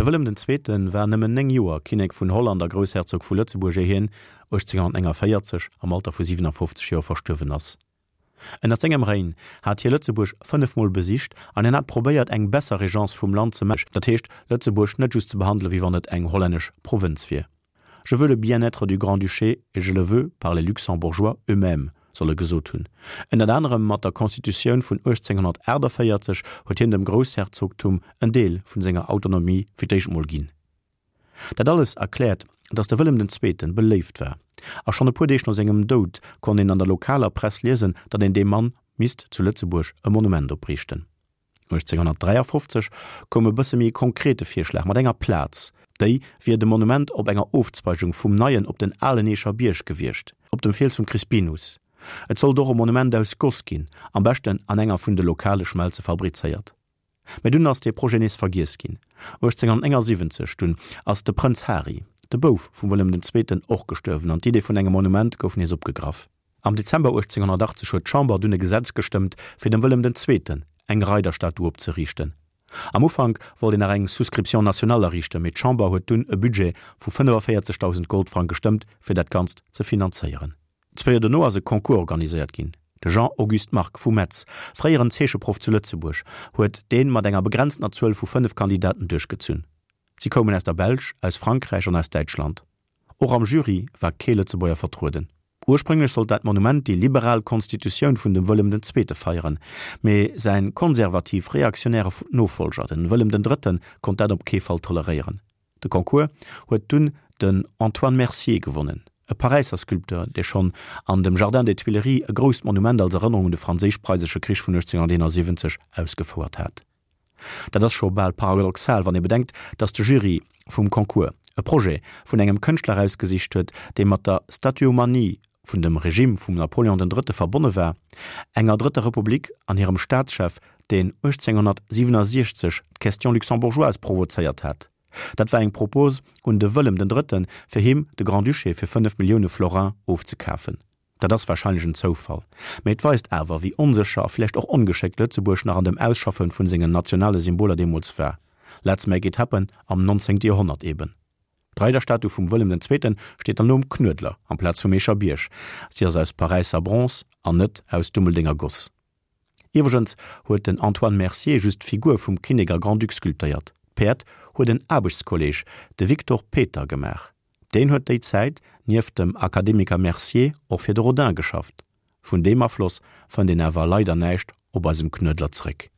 De Wëllem den Zweete war nëmmen 9 Joer Kinnek vun Holland a Groussherzog vu Lëtzebuerg, éier hien 1849 am Alter vu 57 Joer verstuerwen ass. Ënnert sengem Règne hat hie Lëtzebuerg fënnefmol besicht an hien hat probéiert eng besser Regence vum Land ze maachen, dat heescht Lëtzebuerg net just ze behandele wéi wann et eng hollännesch Provënz wier. Je veux le bien-être du Grand-Duché et je le veux par les Luxembourgeois eux-mêmes, soll e gesot hunn. Ënnert anerem mat der Constitutioun vun 1848 huet hien dem Groussherzogtum en Deel vun senger Autonomie fir d'éischt mol ginn. Dat alles erkläert, datt de Wëllem den Zweeten beléift war, a schonn e puer Deeg no sengem Doud konnt een an der lokaler Press liesen, datt een deem Mann misst zu Lëtzebuerg e Monument opriichten. 1853 koum e bësse méi konkrete Virschlag mat enger Plaz, déi wier de Monument op enger Ofzweigung vum neien op den alen Eecher Bierg gewiescht, op dem Fiels vum Crispinus. Et sollt och e Monument aus Goss ginn, am beschten an enger vun de lokale Schmelze fabrizéiert. Mä dunn ass dee Projet nees vergiess ginn. 1879 dunn ass de Prënz Hari, de Bouf vum Wëllem den Zweeten, och gestuerwen an d'Idee vun engem Monument gouf nees opgegraff. Am Dezember 1880 huet d'Chamber dunn e Gesetz gestëmmt, fir dem Wëllem den Zweeten eng Reiderstatu opzeriichten. Am Ufank wollt een nach eng Souscription nationale erriichten, mee d'Chamber huet dunn e Budget vu 45.000 Goldfrank gestëmmt, fir dat Ganzt ze finanzéieren. Zwéi Joer dono ass e Concours organiséiert ginn. De Jean-Auguste Margue vu Metz, fréieren Zeecheproff zu Lëtzebuerg, huet dee mat enger begrenztener Zuel vu 5 Kandidaten duerchgezunn. Si koumen aus der Belsch, aus Frankräich an aus Däitschland. Och am Jury war kee Lëtzebuerger vertrueden. Ursprénglech sollt dat Monument déi liberal Konstitutioun vun dem Wëllem den Zweete feieren, mee säin konservativ-reaktionäre Nofollger, den Wëllem den Drëtten, konnt dat op kee Fall toleréieren. De Concours huet dunn den Antoine Mercier gewonnen, e Paräisser Sculpteur, dee schonn an dem Jardin des Tuileries e grousst Monument als Erënnerung un de Franséisch-Preisesche Krich vun 1871 ausgefouert hat. Dat ass scho bal paradoxal, wann ee bedenkt, datt de Jury vum Concours e Projet vun engem Kënschtler erausgesicht huet, dee mat der Statuomanie vun dem Regime vum Napoléon den Drëtte verbonne war, enger Drëtter Republik an hirem Staatschef, deen 1867 d'Question luxembourgeoise provozéiert hat. Dat war eng Propos un de Wëllem den Drëtten, fir him de Grand-Duché fir 5 Millioune Florin ofzekafen. Dat ass warscheinlech en Zoufall, mee et weist awer, wéi onsécher a vläicht och ongeschéckt Lëtzebuerg nach an dem Ausschaffe vun sengen nationale Symboler deemools war. Let's make it happen am 19. Joerhonnert eben. D'Reiderstatu vum Wëllem den Zweeten steet dann elo um Knuedler amplaz vum Eecher Bierg. Si ass aus Paräisser Bronze an net aus Dummeldenger Goss. Iwwregens huet den Antoine Mercier just d'Figur vum Kinnek a Grand-Duc sculptéiert. D'Päerd huet en Aarbechtskolleeg, de Victor Peter, gemaach. Deen huet déi Zäit nieft dem Akademiker Mercier och fir de Rodin geschafft. Vun deem Afloss fënnt een awer leider näischt op eisem Knuedler zréck.